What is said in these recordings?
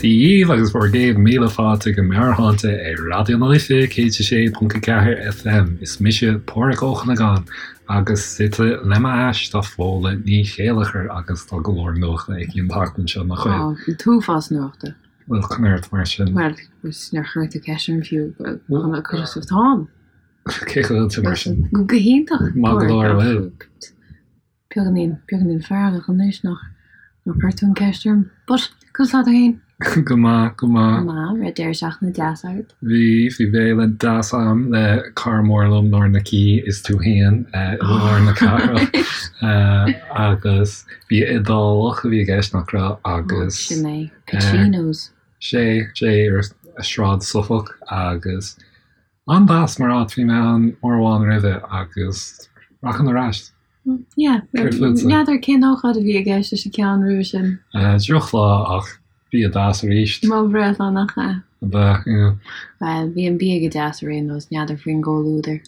Dia dhaoibh agus bhur gcéad míle fáilte go Meabhairshláinte ar Raidió na Life 106.4 FM. Is mise Páraic Ó Cuinneagáin agus suite le m'ais tá Fódhla Ní Chéilleachair agus tá go leor nuachta aici an tseachtain seo, nach bhfuil? Tá, an t-uafás nuachta. Bhuel, conas mar sin? Bhuel, níor chuir tú ceist orm fiú, conas atáim? Cén chaoi a bhfuil tú mar sin? Go hiontach. Maith go leor, bhuel. Beagáinín, beagáinín feargach anois nach, nár chuir tú an ceist orm. But, conas tá tú fhéin? Go maith, go maith. Go maith, raibh deireadh seachtaine deas agat? Bhí, bhí béile deas a'm le cara mór liom, Nóra Nic Aoidh, is tú fhéin, i lár na cathrach. Agus bia Iodálach a bhí i gceist, nach raibh? Agus. Sin é, Pacino's. Sé, sé, ar Sráid Suffolk agus An-deas mar áit, bhí mé ann uair amháin roimhe agus rachainn ar ais. Yeah, Céard fútsa? N'fheadar cén ócáid a bhí i gceist leis an ceann roimhe sin. Drochlá ach bia deas arís. Mo bhreithlá nach ea? Ab ea, yeah. Bhuel, bhí an bia go deas ar aon nós, n'fheadar faoin gcomhluadar.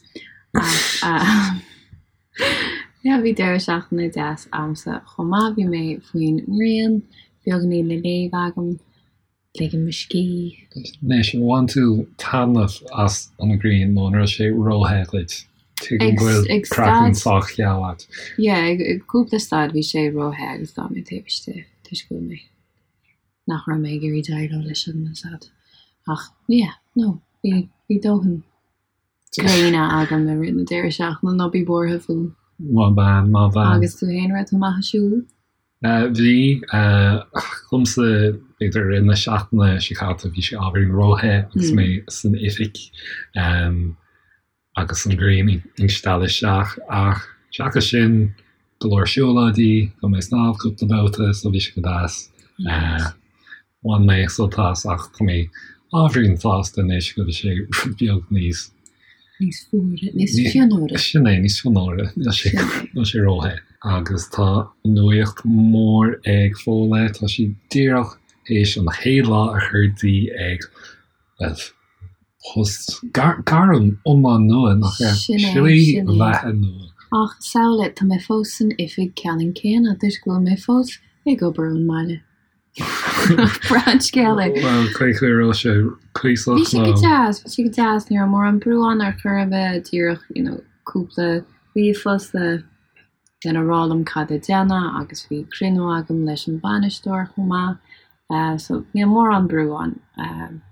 Ach yeah, bhí deireadh seachtaine deas a'msa chomh maith, bhí mé faoin ngrian, beagáinín le léamh agam. Ligim mo scíth. Anois, ar bhain tú taitneamh as an ghrian nó an raibh sé róthe dhuit? Tuigim go bhfuil craiceann sách geal agat. Yeah, ag cúpla staid bhí sé róthe agus d'fhan mé taobh istigh toisc go bhfuil mé, nach raibh mé ag iarraidh déileáil leis an sad. Ach yeah, no, bhí, bhí dóthain gréine agam i rith na deireadh seachtaine, ná bí buartha fúm. Maith bean, maith bean. Agus tú fhéin, raibh tú amach ag siúl? Bhí. Dhomsa, b'fhéidir i rith na seachtaine seo caite, bhí sé ábhairín róthe agus mé san oifig agus an ghrian ag stealladh isteach. Ach seachas sin, go leor siúlóidí, chuaigh mé ag snámh cúpla babhta so bhí sé go deas. Bhain mé sult as ach tá mé ábhairín sásta anois go bhfuil sé rud beag níos. Níos fuaire, níos fionnuaire. Sin é, níos fionnuaire, níl sé, níl sé róthe. Agus tá nuaíocht mhór ag Fódhla, tá sí díreach théis an chéad lá a chur di ag, bhuel, post, gairm iomlán nua, nach ea? Sin é, Slí sin é. bheatha nua. Ach samhlaigh, tá mé fós san oifig ceannann céanna toisc go bhfuil mé fós ag obair ón mbaile. Breá an scéal é. Bhuel, cén chaoi a raibh sé cuíosach Bhí sé go deas, bhí sé go deas, ní raibh mórán brú ann ar chor ar bith, díreach, you know, cúpla ríomhphost le lena rá liom cad le déanamh agus bhí cruinniú agam leis an bhainisteoir chomh maith. So níl mórán brú ann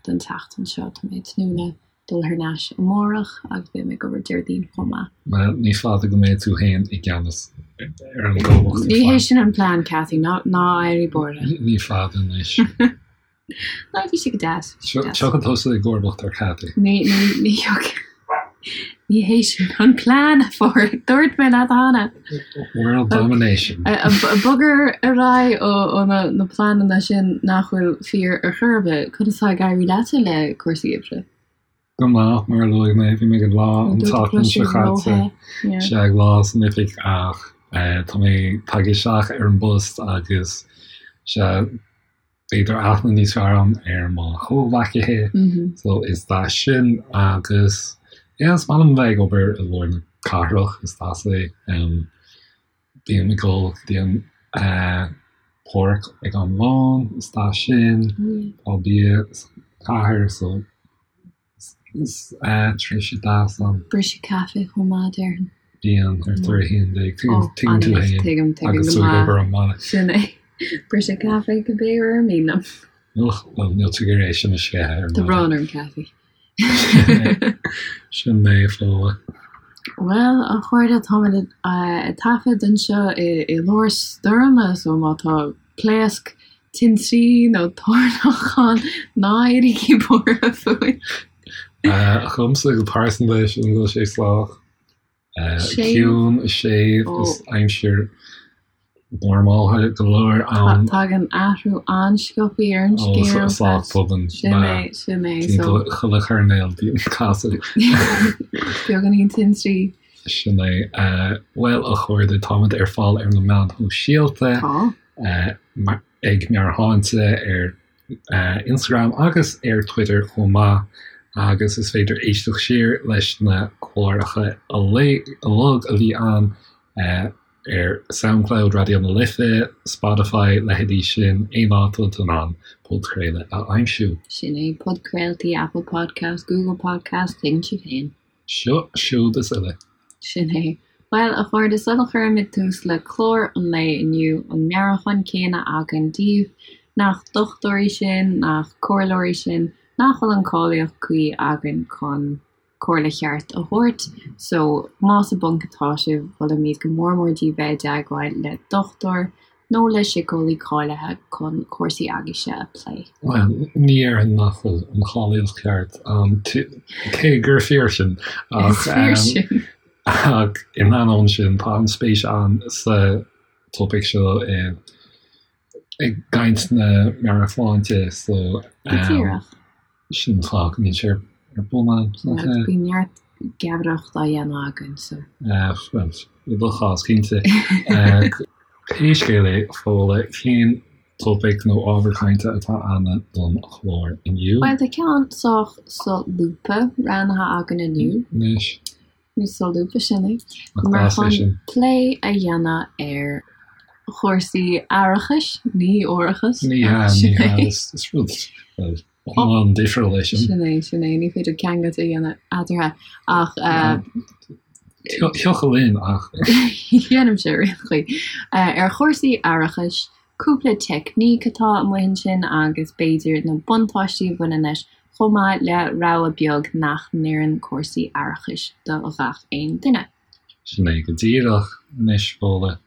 don tseachtain seo, tá mé ag tnúth le dul thar n-ais amárach agus beidh mé ag obair Déardaoin chomh maith. Bhuel, ní fada go mbeidh tú féin i gceannas ar an gcomhlacht. Ní hé sin an plean, Cathy, ná ná éirí buartha. Ní fada anois. Ná bhí sé go deas. Tiocfaidh tusa i gcomharbacht ar Cathy. Ní ní ní ní hé sin an plean, a Pháraic. Dúirt mé leat cheana. World domination. Bog ar aghaidh ó na na pleananna sin nach bhfuil fíor ar chor ar bith. Conas tá ag éirí leatsa le cúrsaí oibre? Go maith, mar a luaigh mé, bhí mé ag lá an tseachtain seo caite, sea, ag lá san oifig ach tá mé tagtha isteach ar an bpost agus sea, b'fhéidir aithne níos fearr agam ar mo chomhghleacaithe so is deas sin agus yeah is maith liom bheith ag obair i lár na cathrach, is deas é. Bím ag dul go dtí an páirc ag am lóin, is deas sin, tá bia sa chathair so Is tréimhse deas ann. Briseadh caife chomh maith, déarfainn. Bíonn, ar tar 11. Tuigeann tú fhéin. Tuigim, tuigim Agus tú ag obair ón mbaile. Sin é. Briseadh caife cibé uair ar mian liom. Och, bhuel, níl tú ag iarraidh é sin a sceitheadh ar Tá maidin. brón orm, Cathy. Sin mé, Fódhla. Bhuel, a chairde, táimid ag taifead anseo i lár stoirme, so má tá pléasc tintrí nó toirneach ann, ná éirígí buartha fúinn. Dhomsa go pearsanta, sílim go bhfuil sé sách ciúin, séimh, is aimsir normálta go leor ann. Tagann athrú an-sciobtha ar an scéal. Sách tobann. Sin é, sin é. Timpeall chuile choirnéal bíonn casadh. Beagáinín tintrí. Sin é. Bhuel, a chairde, táimid ar fáil ar na meáin shóisialta. Tá. Ag Meabhairshláinte ar Instagram agus ar Twitter chomh maith agus is féidir éisteacht siar leis na cláracha uilig a bhí ann. Ar Soundcloud Raidió na Life, Spotify, leithéidí sin, aon áit a bhfuil tú in ann podchraoladh a aimsiú. Sin é, podchraoltaí, Apple Podcast, Google Podcast, tuigeann sibh féin. Seo, siúd is uile. Sin é. Bhuel, a chairde, sula gcuirimid tús le clár an lae inniu, an meabhrúchán céanna againn daoibh, nach dochtúirí sinn, nach comhairleoirí sinn, nach bhfuil an cáilíocht cuí againn chun comhairle cheart a thabhairt so más i bponc atá sibh, molaimid go mór mór daoibh bheith i dteagmháil le dochtúir nó le síceolaí cáilithe chun cúrsaí agaibhse a phlé. Bhuel, ní déarfainn nach bhfuil an cháilíocht cheart ann, cé gur fíor sin, ach ach in ainneoin sin, tá an spéis ann sa topaic seo i i gcaint na meabhairshláinte so Go díreach. Sin an fáth go mbíonn sé ar bun ann. Bíonn neart geamaireacht á dhéanamh againn so. Bhuel, i do chás, cinnte. Pé scéal é, Fódhla, cén topaic nó ábhar cainte atá ann don chlár inniu? Bhuel, tá ceann sách solúbtha roghnaithe againn inniu. Anois. Nó solúbtha, sin é. Mar chun plé a dhéanamh ar chúrsaí aireachais, ní árachais. Ní hea, ní hea, is rud, bhuel, iomlán difriúil é sin. Sin é, sin é, ní féidir ceangailt a dhéanamh eatarthu ach. Thiocfadh linn ach. Déanaimse ar aon chaoi. Ar chúrsaí aireachais, cúpla teicníc atá amuigh ansin agus b'fhéidir na buntáistí a bhaineann leis, chomh maith le rabhadh beag nach n-oireann cúrsaí aireachais do ghach aon duine. Sin é go díreach anois, Fódhla.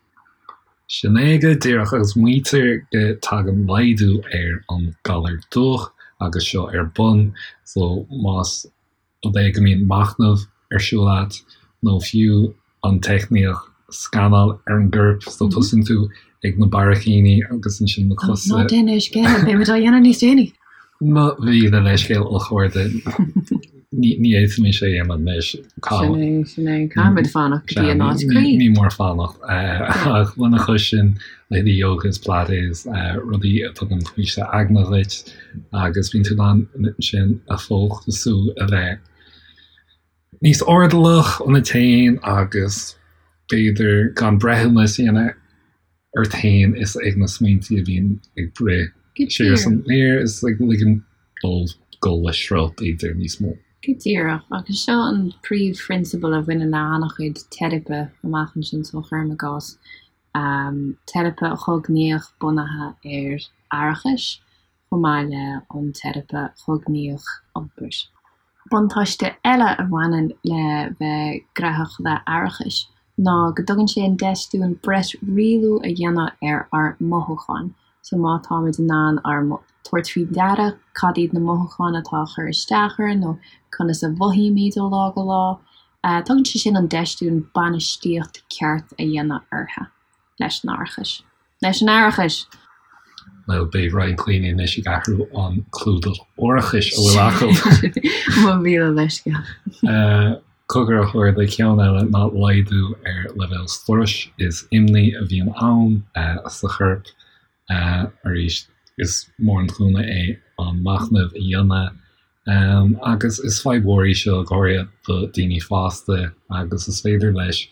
Sin é go díreach, agus maítear go dtagann laghdú ar an galar dubhach agus seo ar bun, so más rud é go mbíonn machnamh ar siúl agat nó fiú an teicníocht scanáil ar an gcorp, so tosaíonn tú ag na barraicíní agus ansin na cosa. Ná déan é scéal, beimid á dhéanamh níos déanaí! Mo mhíle leithscéal a chairde, ní fhéadfaimis é a dhéanamh anois. Sin é, sin é. Caithfimid fanacht go dtí an áit cuí. Ní mór fanacht. Ach lena chois sin, leithéidí yoga is pilates, rudaí a tugann faoiseamh aigne dhuit agus bíonn tú in ann ansin a fhócasú a bheith níos airdeallach ionat féin agus b'fhéidir gan breithiúnas a dhéanamh ort féin is ag na smaointe a bhíonn ag rith siar is aniar is ag ligean dóibh dul le sruth b'fhéidir níos mó. Go díreach, agus seo an príomhphrionsabal a bhaineann le an-chuid teiripe amach ansin so cuirim i gcás, teiripe chognaíoch bunaithe ar aireachas chomh maith le an teiripe chognaíoch iompair. Buntáiste eile a bhaineann le bheith graitheach le aireachas ná go dtugann sé an deis dúinn breis rialú a dhéanamh ar ár mothúcháin. So má táimid in ann ár tabhairt faoi deara cad iad na mothúcháin atá ag cur isteach orainn nó conas a mhothaímid ó lá go lá, tugann sé sin an deis dúinn bainistíocht ceart a dhéanamh orthu leis an aireachas. Leis an aireachas! Bhuel, beidh roinnt daoine anois ag athrú an clúdach árachais a bhfuil acu. Mo mhíle leithscéal. Cogar a chairde, ceann eile ná laghdú ar leibhéal struis is imní a bhíonn ann sa chorp. Arís, is mór an cúnamh é an machnamh a dhéanamh agus is fadhb mhór í seo, go háirithe do daoine fásta agus is féidir leis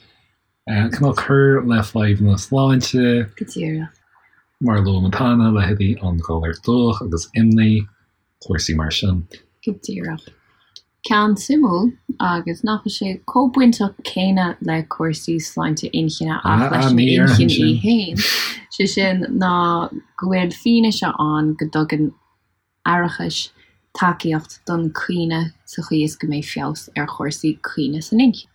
Cineál cur le fadhbanna sláinte. Go díreach. Mar a luaigh muid cheana, leithéidí an galar dubhach agus imní, cúrsaí mar sin. Go díreach. Ceann suimiúil, agus nach bhfuil sé chomh bainteach céanna le cúrsaí sláinte inchinne ach leis an inchinn í fhéin, sé sin ná go bhfuil fianaise ann go dtugann aireachais tacaíocht don chuimhne sa chaoi is go mbeidh feabhas ar chúrsaí cuimhne san inchinn.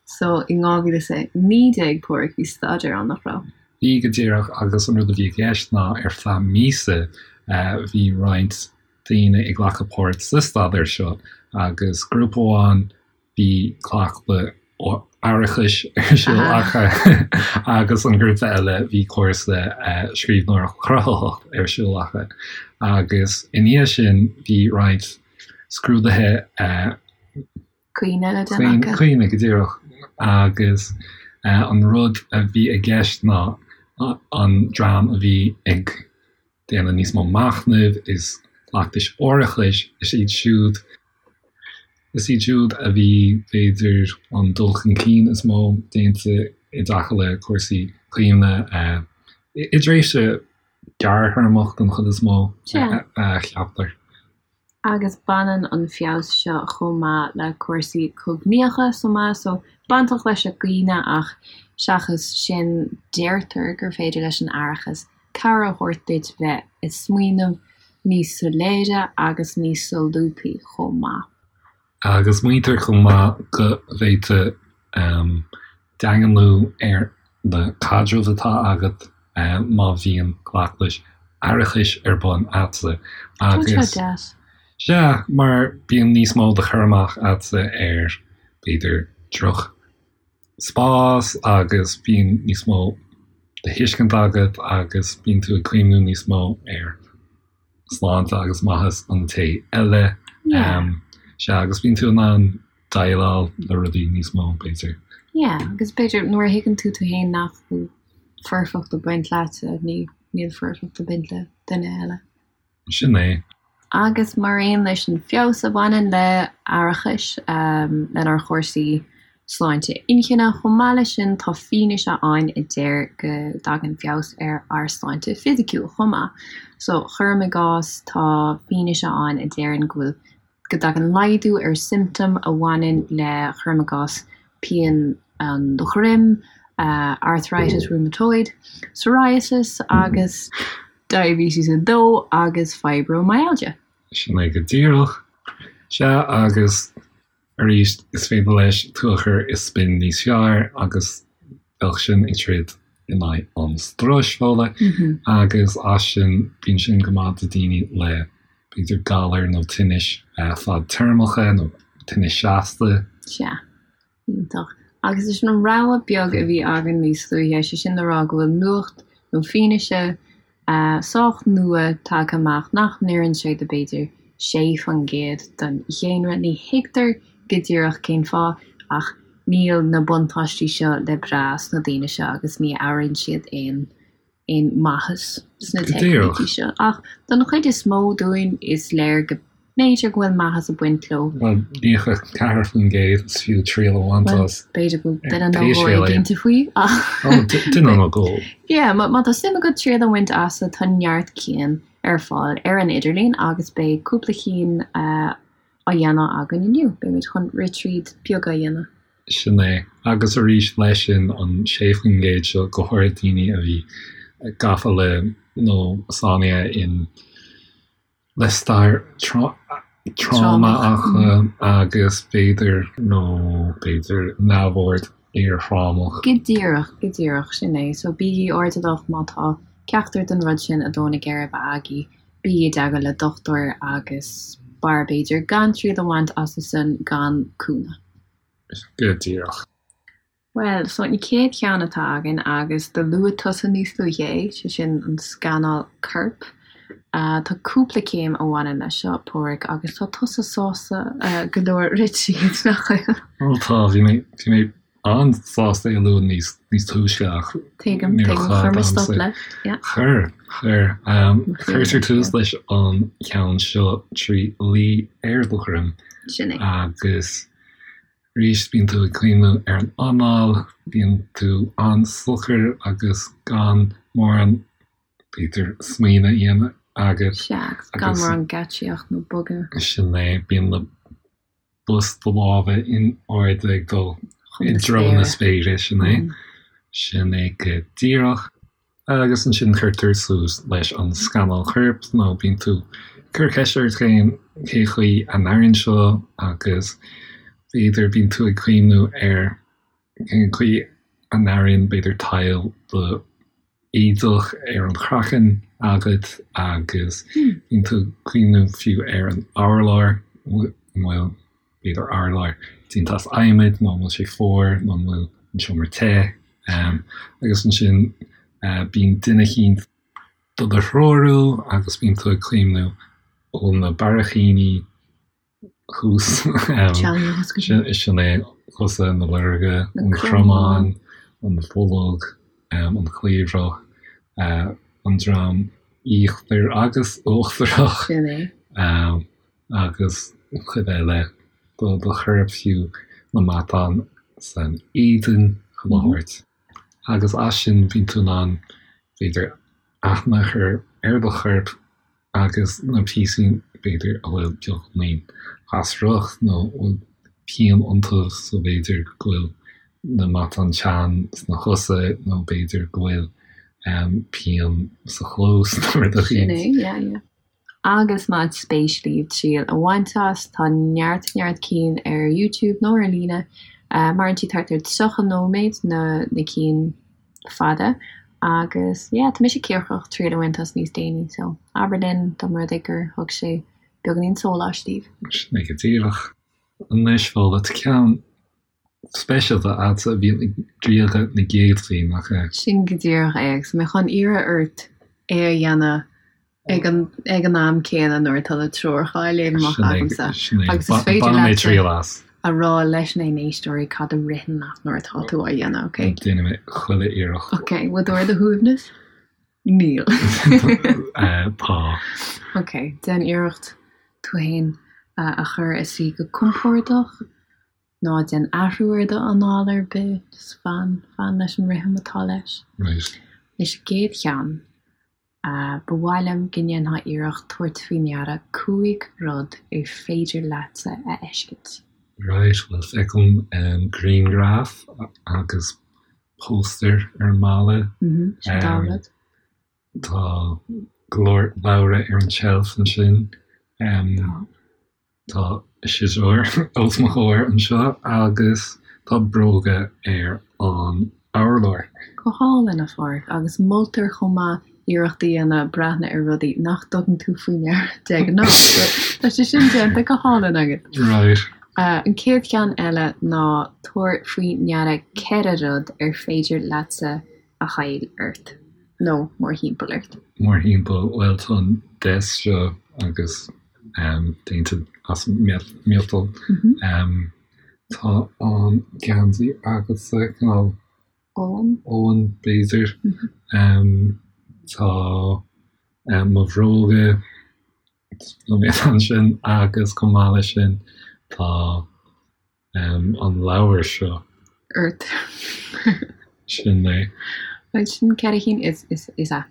So in 2019, Páraic, bhí staidéar ann, nach raibh? Bhí, go díreach, agus an rud a bhí i gceist ná ar feadh míosa bhí roinnt daoine ag glacadh páirt sa staidéar seo agus grúpa amháin Bhí cleachtadh aireachais ar siúl acu agus an grúpa eile bhí cúrsa scríbhneoireacht chruthaitheach ar siúl acu agus i ndiaidh sin bhí roinnt scrúduithe Cuimhne le déanamh acu. Cuimhne, go díreach. Agus an rud a bhí i gceist ná an dream a bhí ag déanamh níos mó machnaimh is cleachtais aireachais, is iad siúd Is iad siúd a bhí, b'fhéidir, an dul chun cinn is mó déanta i dtaca le cúrsaí. cuimhne i dtréimhse gearrthéarmach den chuid is mó, a cheaptar. Agus baineann an feabhas seo chomh maith le cúrsaí cognaíocha chomh maith, so bainteach leis an gcuimhne ach seachas sin deirtear gur féidir leis an aireachas cabhair a thabhairt duit bheith ag smaoineamh níos soiléire agus níos solúbthaí chomh maith. Agus maítear chomh maith go bhféadfadh daingniú ar na caidrimh atá agat má bhíonn cleachtais aireachais ar bun agatsa. Tá sé deas. Sea, mar bíonn níos mó de chur amach agatsa ar, b'fhéidir, droch spás agus bíonn níos mó de thuiscint agat agus bíonn tú ag cuimhniú níos mó ar sláinte agus maitheas an té eile. Sea, agus bíonn tú in ann déileáil le rudaí níos mó, b'fhéidir. Yeah, agus b'fhéidir nuair a thuigeann tú tú féin nach bhfuil foirfeacht ag baint leatsa, ní, níl foirfeacht ag baint le duine eile. Sin é. Agus mar aon leis an feabhas a bhaineann le aireachas, lenár chúrsaí sláinte inchinne, chomh maith leis sin tá fianaise ann a deir go dtagann feabhas ar ár sláinte fisiciúil chomh maith. So, cuirim i gcás, tá fianaise ann a deireann go bhfuil go dtagann laghdú ar siomptóim a bhaineann le, cuirim i gcás, pian an dhroim, arthritis rheumatoid, psoriasis agus diabetes 2 agus fibromyalgia. Sin é go díreach. Sea, agus arís, is féidir leis tú a chur i spion níos fearr agus bheadh sin ag troid in aghaidh an struis, Fódhla, agus as sin, bíonn sin go maith do daoine le b'fhéidir galair nó tinnis fadtéarmacha nó tinnis seasta. Sea. Iontach. Agus leis an rogha beag a bhí againn níos luaithe, sé sin le rá go bhfuil nuacht nó fianaise sách nua tagtha amach nach n-oireann sé do b'fhéidir 6% den dhaonra. Ní thuigtear go díreach cén fáth ach níl na buntáistí seo le brath sna daoine seo agus ní airíonn siad aon aon maitheas sna teicnící seo. Ach don chuid is mó dúinn, is léir go mb'fhéidir go bhfuil maitheas ag baint leo. Bhuel, 94% is fiú triail a bhaint as. B'fhéidir go bhfuil duine nó dhó éiginnte faoi ach. Ó, duine nó dhó. Yeah, má tá suim agat triail a bhaint as, tá neart cinn ar fáil ar an idirlíon agus beidh cúpla cinn á dhéanamh againn inniu. Beimid chun rith tríd beag a dhéanamh. Sin é. Agus arís leis sin, an 6% seo, go háirithe daoine a bhí gafa le nó sáinnithe in le stair tráma acu agus b'fhéidir nó b'fhéidir neamhord iarthrámach. Go díreach, go díreach, sin é. So bígí airdeallach má tá ceachtar den rud sin ag dó na geirbe agaibh, bígí i dteagmháil le dochtúir agus b'fhearr b'fhéidir gan triail a bhaint astu san gan cúnamh. Go díreach. Bhuel, so an chéad cheann atá againn, agus do luaigh tusa níos luaithe é, sé sin an scanáil coirp. Tá cúpla céim a bhaineann leis seo, Páraic, agus tá tusa sásta go leor rith tríd, nach bhfuil? Ó tá, bhí mé, bhí mé an-sásta é a lua níos, níos túisce ach Tuigim, níor tuigim, chuir mé stop leis, yeah. Chuir, chuir. Cuirtear tús leis an cheann seo trí luí ar do dhroim. Sin é. Agus arís bíonn tú ag cuimhniú ar an anáil, bíonn tú an-socair agus gan mórán, b'fhéidir, smaoineamh a dhéanamh agat. Sea, agus gan mórán geáitsíocht nó bogadh. Sin é, bíonn na bos do lámha in airde ag dul i dtreo na spéire, sin é. Sin é go díreach. Agus ansin cuirtear suas leis an scanáil choirp nó bíonn tú ag cur ceist ort féin cé chaoi a n-airíonn seo agus b'fhéidir bíonn tú ag cuimhniú ar cén chaoi a n-airíonn b'fhéidir tadhall do éadach ar an chraiceann agat agus bíonn tú ag cuimhniú fiú ar an urlár, an bhfuil b'fhéidir urlár déanta as adhmad nó an bhfuil sé fuar nó an bhfuil an seomra te. Agus ansin bíonn duine eicínt do do threorú agus bíonn tú ag cuimhniú ó na barrachaíní thuas, sin é, cosa, na lorga, an cromán, an bholg, an chliabhrach, an droim íochtar agus uachtarach. Sin é. agus cuid eile do do chorp fiú na matáin san éadan chuile shórt. Agus as sin bíonn tú in ann, b'fhéidir, aithne a chur ar do chorp agus na píosaí, b'fhéidir, a bhfuil beagáinín lasrach nó a bhfuil pian iontu, so b'fhéidir go bhfuil na matáin teann sna cosa nó b'fhéidir go bhfuil pian sa chluas nó rud éicint. Sin é, yeah, yeah. Agus más spéis libh triail a bhaint as, tá neart neart cinn ar YouTube nó ar líne. Maireann siad thart ar 30 nóiméad, na na cinn fada. Agus yeah, tá mise cíocrach triail a bhaint as níos déanaí, so abair linn dá mba rud é gur thug sé beagáinín sóláis daoibh. Sin é go díreach. Anois, Fódhla, tá ceann speisialta agatsa a bhíonn ag driogadh na gcéadfaí, nach ea? Sin go díreach é, agus tá mé chun iarraidh ort é a dhéanamh ag an ag an am céanna nuair atá na treoracha á léamh amach agamsa. Agus is féidir leat a rá leis na n-éisteoirí cad a ritheann leat nuair atá tú á dhéanamh, ok? Déanfaidh mé chuile iarracht. Ok, bhfuil tú ar do shuaimhneas? Níl. Tá. Ok, déan iarracht tú féin a chur i suí go compordach. Ná déan athrú ar do anáil ar bith, just fan, fan leis an rithim atá leis. Right. Anois an gcéad cheann, ba mhaith liom go ndéanfá iarracht tabhairt faoi ndeara 5 rud ar féidir leatsa a fheiscint. Right, bhuel feicim grianghraf agus póstaer ar an mballa. Mhm, sin dá rud. Tá go leor leabhra ar an tseilf ansin. Tá. Tá siosúr os mo chomhair anseo agus tá bróga ar an urlár. Go hálainn, a Pháraic, agus moltar chomh maith iarracht a dhéanamh breathnú ar rudaí nach dtugann tú faoi ndeara de ghnáth. So, tá sé sin déanta go hálainn agat. Right. An chéad cheann eile ná tabhair faoi ndeara 4 rud ar féidir leatsa a fháil ort, nó mórthimpeall ort. Mórthimpeall, bhuel tá an desk seo agus déanta as miotal. Tá an geansaí agatsa cineál Olann. Olann b'fhéidir. Tá mo bhróga ansin agus chomh maith leis sin tá an leabhar seo. ort. Sin é. Right, sin 4 chinn is, is, is ea.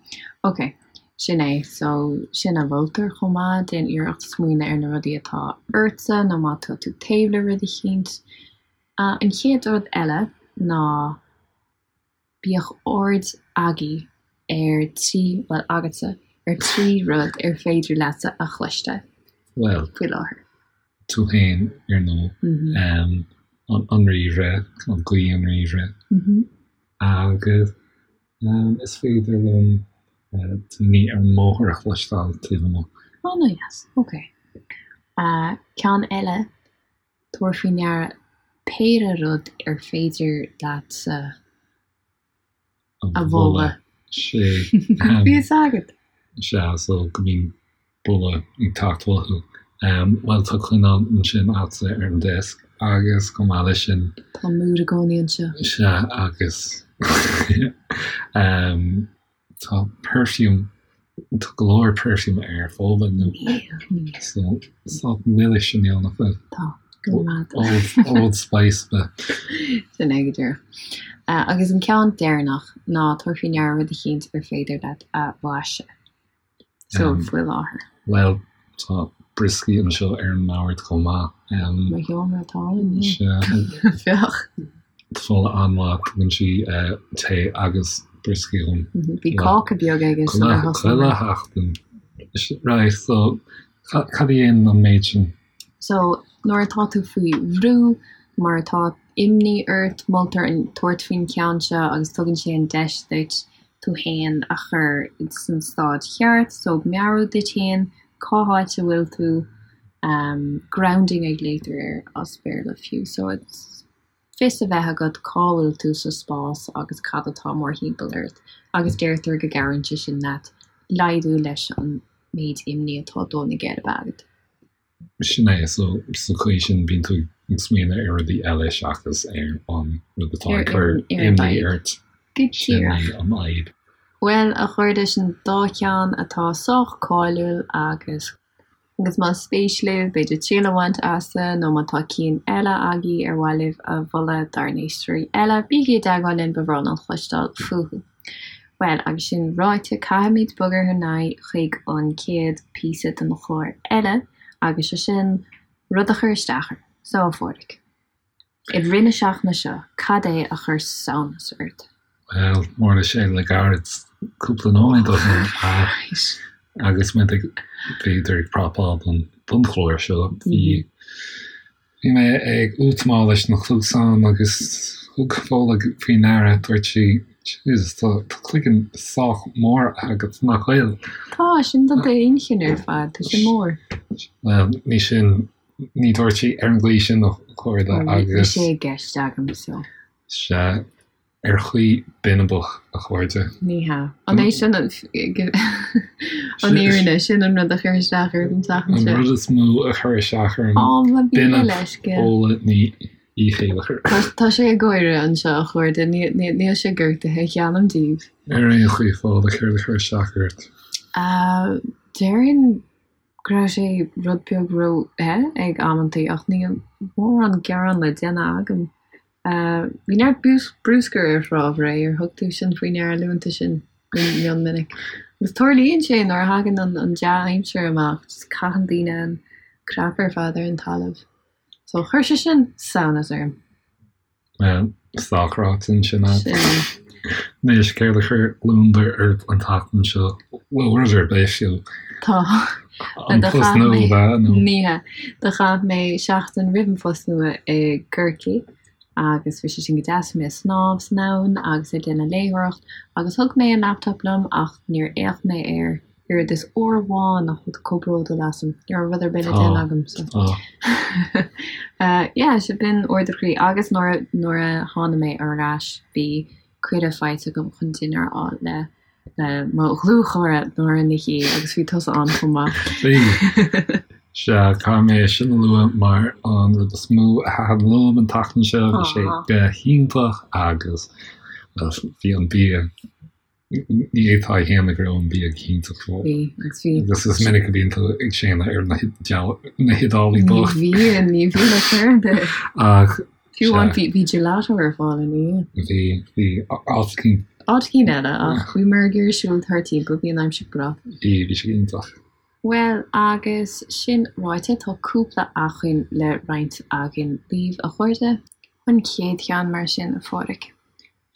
Ok, sin é. So, sin a mholtar chomh maith, déan iarracht smaoineamh ar na rudaí atá ortsa nó má tá tú taobh le rud eicínt. An chéad rud eile ná Bíodh aird agaibh ar trí, bhuel, agatsa, ar thrí rud ar féidir leatsa a chloisteáil Bhuel, faoi láthair. tú féin, ar ndóigh, an ríomhaire, an gaoth an ríomhaire, agus is féidir liom daoine ar an mbóthar a chloisteáil taobh amuigh. Ana-dheas, ok. Ceann eile, Tabhair faoi ndeara péire rud ar féidir leatsa a bholadh. Sé. Bhí fhios agat! Sea, so go mbíonn boladh ag teacht uathu. Bhuel, tá coinneal ansin agatsa ar an desk agus chomh maith leis sin. Tá múr i gcónaí anseo. Sea, agus Tá perfume, tá go leor perfume ar Fódhla nó so sách milis inniu, nach bhfuil? Tá, go maith. Old, Old Spice ba. Sin é go díreach. Agus an ceann deireanach ná tabhair faoi ndeara rud eicínt ar féidir leat a bhlaiseadh. So, faoi láthair. Bhuel, tá brioscaí anseo ar an mbord chomh maith. Mo sheomra atá ann, yeah. Féach. Tá Fódhla an-mhaith, tugann sí tae agus brioscaí dhom. Bhí cáca beag aige sular thosaigh mé. Chuile sheachtain. Right, so cad a dhéanann an méid sin? So, nuair atá tú faoi bhrú, mar atá imní ort, moltar tabhairt faoin cheann seo agus tugann sé an deis duit tú fhéin a chur san staid cheart, so meabhrú duit fhéin cá háit a bhfuil tú, grounding a ghlaotar air as Béarla fiú, so it's fios a bheith agat cá bhfuil tú sa spás agus cad atá mórthimpeall ort agus deirtear go gcabhraíonn sé sin leat laghdú leis an méid imní atá ag dó na geirbe agat. Sin é, so sa chaoi sin bíonn tú ag smaoineamh ar rudaí eile seachas ar an rud atá ag cur imní ort. Go Sin é díreach. an fhadhb. Bhuel, a chairde, sin dá cheann atá sách cáiliúil agus. Agus más spéis libh, b'fhéidir triail a bhaint as nó má tá cinn eile agaibh ar mhaith libh a mholadh dár n-éisteoirí eile, bígí i dteagmháil linn, ba bhreá linn cloisteáil fúthu. Bhuel, agus sin ráite, caithfimid bogadh ar aghaidh chuig an chéad píosa den chlár eile, agus sé sin rud a chuir isteach orm. So, a Phádraig. I rith na seachtaine seo, cad é a chuir samhnas ort? Bhuel, tharla sé le gairid, cúpla nóiméad ó shin, ach agus muid ag, b'fhéidir, ag prapáil don, don chlár seo, bhí, bhí mé ag útamáil leis na cluasáin agus thug Fódhla faoi ndeara, dúirt sí, Jesus, tá, tá cloigeann sách mór agat, nach bhfuil? Tá, sin do d'inchinn ar fad, tá sé mór. Bhuel, ní sin Ní dúirt sí ar an gcaoi sin a chairde agus. Bhí sé i gceist agam so. Sea, ar chaoi binibeach, a chairde. Ní hea. An é sin an fhírinne? Sin an rud a chuir isteach ort an tseachtain seo? An rud is mó a chuir isteach orm. Ó, mo mhíle leithscéal. Fódhla Ní Chéilleachair. Tá sé ag gáire anseo, a chairde. Níl sé gortaithe, geallaim daoibh. Ar aon chaoi, Fódhla, céard a chuir isteach ort? Déarfainn go raibh sé rud beag ró-the ag amantaí ach níl mórán gearán le déanamh agam. Bhí neart bruscair ar Thrá Bhré, ar thug tú sin faoi ndeara luann tú sin go mion minic. Agus tarlaíonn sé nuair a thagann an dea-aimsir amach, just caitheann daoine an crap ar fad ar an talamh. So chuir sé sin samhnas orm. Bhuel, sách ráite ansin agat. Anois, céard a chuir gliondar ort an tseachtain seo? Bhuel, rud ar bith, fiú. Tá. An post nua, ab ea, nó? Ní hea. Do chaith mé seachtain roimh an phost nua i gCorcaigh agus bhí sé sin go deas. Bhí mé ag snámh san abhainn agus ag déanamh léitheoireacht agus thug mé an laptop liom ach níor fhéach mé air oiread is uair amháin nach bhfuil tú chomh bródúil asam. Ní raibh rud ar bith le déanamh agam so. Yeah, so b'in ardú croí agus nuair nuair a tháinig mé ar ais bhí cuireadh faighte agam chun dinnéar a fháil le le mo dhlúthchara Nóra Ní Shé agus bhí tusa ann chomh maith. Bhí. Sea, caithfidh mé sin a lua mar an rud is mó a thaitin liom an tseachtain seo, bhí sé go hiontach agus bhí an bia Ní fhéadfá a shéanadh go raibh an bia go hiontach fós. Bhí, agus bhí. Agus is minic a bhíonn tú ag séanadh ar na hIodálaigh bocht. Ní bhíonn, ní bhíonn ar chor ar bith. Ach, Fiú amháin bhí, bhí gelato ar fáil ina dhiaidh. Bhí, bhí, áit eicínt. Áit eicínt eile, ach bhíomar ag iarraidh siúl thart timpeall, bhí an aimsir breá. Bhí, bhí sé iontach. Bhuel, agus sin ráite, tá cúpla acmhainn le roinnt againn libh, a chairde. An chéad cheann mar sin, a Phádraig.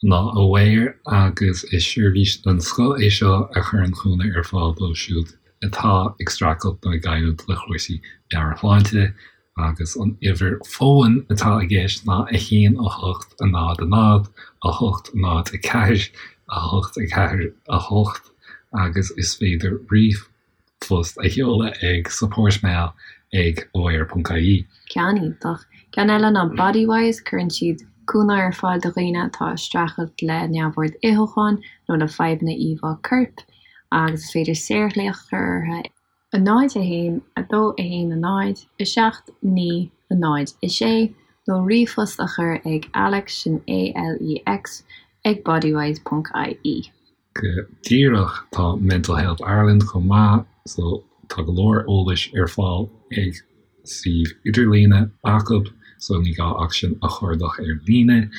ná Aware agus is seirbhís den scoth é seo a chuireann cúnamh ar fáil dóibh siúd atá ag streachailt nó ag coimhlint le cúrsaí meabhairshláinte agus an uimhir fóin atá i gceist ná 1 8 0 0 8 0 4 8 4 8 agus is féidir ríomhphost a sheoladh ag supportmail ag aware.ie. Ceann iontach. Ceann eile ná Bodywhys, cuireann siad cúnamh ar fáil do dhaoine atá ag streachailt le neamhord itheacháin nó le fadhbanna íomhá coirp agus is féidir saorghlaoch a chur orthu 0 1 2 1 0 7 9 0 6 nó ríomhphost a chur ag Alex, sin A-L-E-X, ag bodywhys.ie. Go díreach, tá Mental Health Ireland chomh maith, so tá go leor eolais ar fáil ag suíomh idirlíne acu, so ní gá ach sin a chuardach ar líne.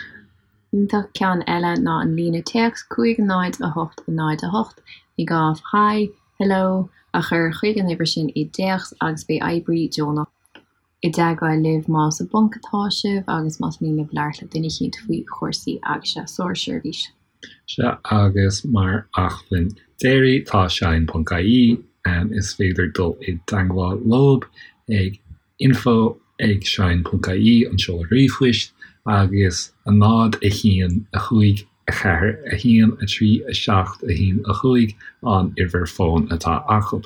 Iontach. Ceann eile ná an líne téacs 5 0 8 0 8, ní gá ach Hi, Hello a chur chuig an uimhir sin i dtéacs agus beidh oibrí deonach i dteagmháil libh más i bponc atá sibh agus más mian libh labhairt le duine eicínt faoi chúrsaí agus sárseirbhís. Sea, agus mar acmhainn deiridh, tá shine.ie, is féidir dul i dteagmháil leob ag info ag shine.ie, an seoladh ríomhphoist, agus 0 1 5 4 1 3 7 1 5 an uimhir fóin atá acu.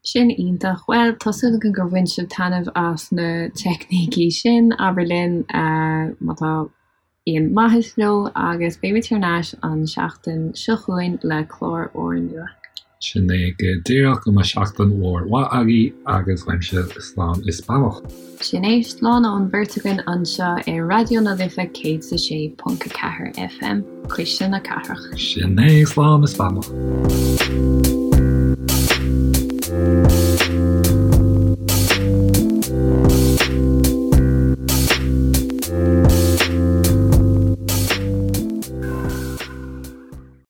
Sin iontach. Bhuel, tá súil againn gur bhain sibh taitneamh as na teicnící sin. Abair linn má tá aon maitheas leo agus beimid thar n-ais an seachtain seo chugainn le clár úrnua. Sin é go díreach. Go mbeidh seachtain mhór mhaith agaibh agus uaimse slán is beannacht. Sin é, slán ón bheirt againn anseo ar Raidió na Life 106.4 FM, Cuisle na Cathrach. Sin é, slán is beannacht.